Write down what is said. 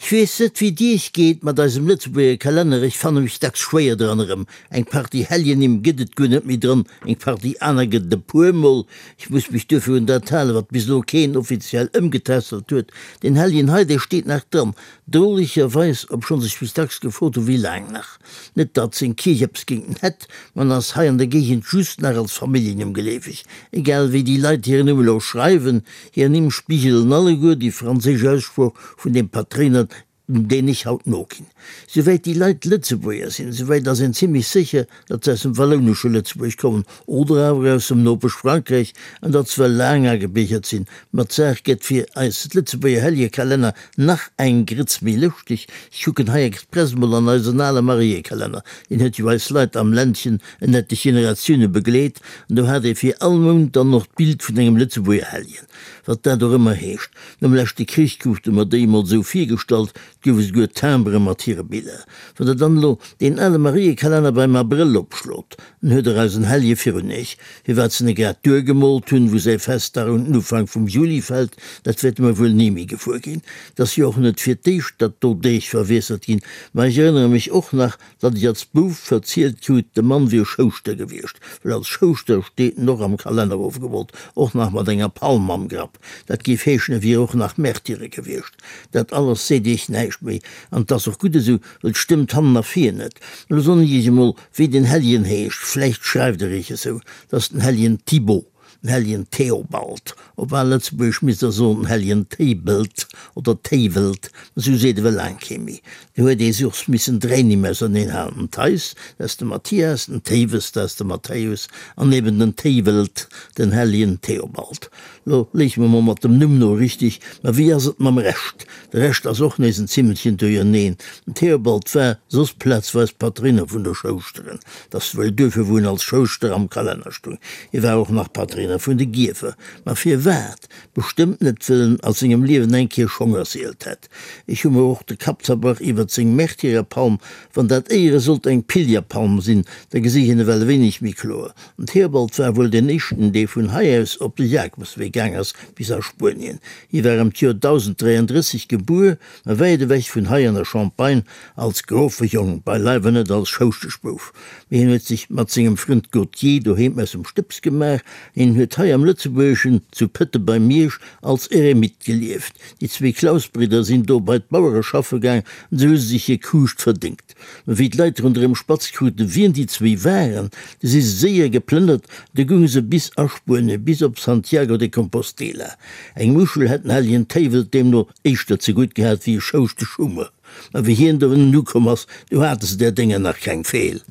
Ech weess net wéi et iech geet mat eisem Lëtzebuerger Kalenner, ech fanne mech dacks schwéier dran erëm. Eng Partie Heljennimm gëtt et guer net méi dran, eng Partie aner gëtt et e puer mol. Ech muss mech duerfir un dat halen, wat bis elo keen offiziell ëmgetässelt huet. Deen Helljen hei, dee steet nach dran, drolegerweis, obschonns ech mech dacks gefrot hu wéi laang nach. Net datt seng Kierch eppes géint en hätt, ma en ass hei an der Géigend just nach als Familljennumm geleefeg. Egal wéi déi Leit hiren Numm elo schreiwen, Hir Nimm spigelen alleguer déi franséisch Aussprooch vun deem Patréiner, deen ech haut noginn. Souwäit déi Leit Lëtzebuerger sinn, souwäit ass een zimlech sécher, datt se aus dem wallounesche Lëtzebuerg kommen oder awer aus dem Nopesch Frankräich an datt se well laang agebiergert sinn. Ma d'Saach gëtt fir eis Lëtzebuerger Helljekalenner nach eng Grëtz méi lëschteg. Ech kucken hei express mol an eisen ale Mariekalenner, deen huet jo eis Leit am Ländchen en etlech Generatioune begleet, an do hat ee fir all Mount dann och d'Bild vun engem Lëtzebuerger Helljen, wat dat och ëmmer heescht. Nom leschte Krich krute mer déi emol esou virgestallt, 't gouf esouguer Timbere mat hire Biller. Wann der dann elo deen ale Mariekalenner beim Abrëll opschlot, dann huet der eisen Hellje virun iech. Firwat se en grad duergemoolt hunn, wou säi Festdag un den Ufank vum Juli fält, dat wäerte mer wuel ni méi gewuer ginn. 't ass jo och net fir d'éischt, datt do Deeg verwiesselt ginn, ma ech erënnere mech och nach, Datt ech als Bouf verzielt krut, de Mann wier Schouschter gewiescht, well als Schouschter steet en och am Kalenner ofgemoolt, och nach mat enger Palm am Grapp. Dat géif heeschen, e wier och nach Märtyre gewiescht. Dat alles seet iech näischt méi, an 't ass och gutt esou, well 't stëmmt hannen a vir net. Elo soen ech iech emol, wéi den Helljen heescht, vläicht schreift der iech esou, 't ass den Helljen Thibaut. Den Helljen Theobald, op al Lëtzebuergesch misst der soen den Helljen Théibelt oder Théiwelt, ma sou seet ewell laang kee méi. Do huet ee soss missen dräi Nimm auserneen halen, den Theis, dat ass de Mathias, den Théiwes, dat ass de Matthäus, an eben den Théiwelt, den Helljen Theobald. Lo léiche mer mol mat dem Numm no richteg, ma wéi ass et mam Rescht? De Rescht ass och nees en Zimmelchen duerjerneen. Den Theobald war soss plazweis Patréiner vun de Schouschteren. 't ass wuel duerfir wou en als Schouschter am Kalenner stung. Hie war och nach Patréiner vun de Giefer. Ma firwat? Bestëmmt net wëll en a sengem Liewen eng Kéier Schong erzielt hätt. Ech hu mer och de Kapp zerbrach iwwert seng Märtyrerpalm. Wann dat éiere sollt eng Pilgerpalm sinn, da gesi ech en ewell e wéineg méi kloer. Den Theobald war wuel deen éischten, dee vun hei aus op de Jakobswee gaang ass bis a Spuenien. Hie war ëm d'Joer 1033 gebuer, ma wäit ewech vun hei an der Champagne, Als Grofejong, beileiwe net als Schouschteschbouf, mee hien huet sech mat sengem Frënd Gauthier doheem aus dem Stëbs gemaach. Hien huet hei am Lëtzebuergeschen, zu Pëtte bei Miersch, als Eremit gelieft. Déi zwee Clausbridder sinn do bei d'Bauere schaffe gaang an esou hu se sech hir Kuuscht verdéngt. Mä wéi d'Leit ronderëm spatz kruten, wien déi zwéi waren, du si se séier geplënnert, du gounge se bis a Spuenie, bis op Santiago de Compostela. Eng Muschel hätt den hellegen Téiwel deemno éischter zegutt gehat wéi e Schouschteschummer. Ma wéi hien dohinnen ukomm ass, du hate se där Dénger nach keng Feel.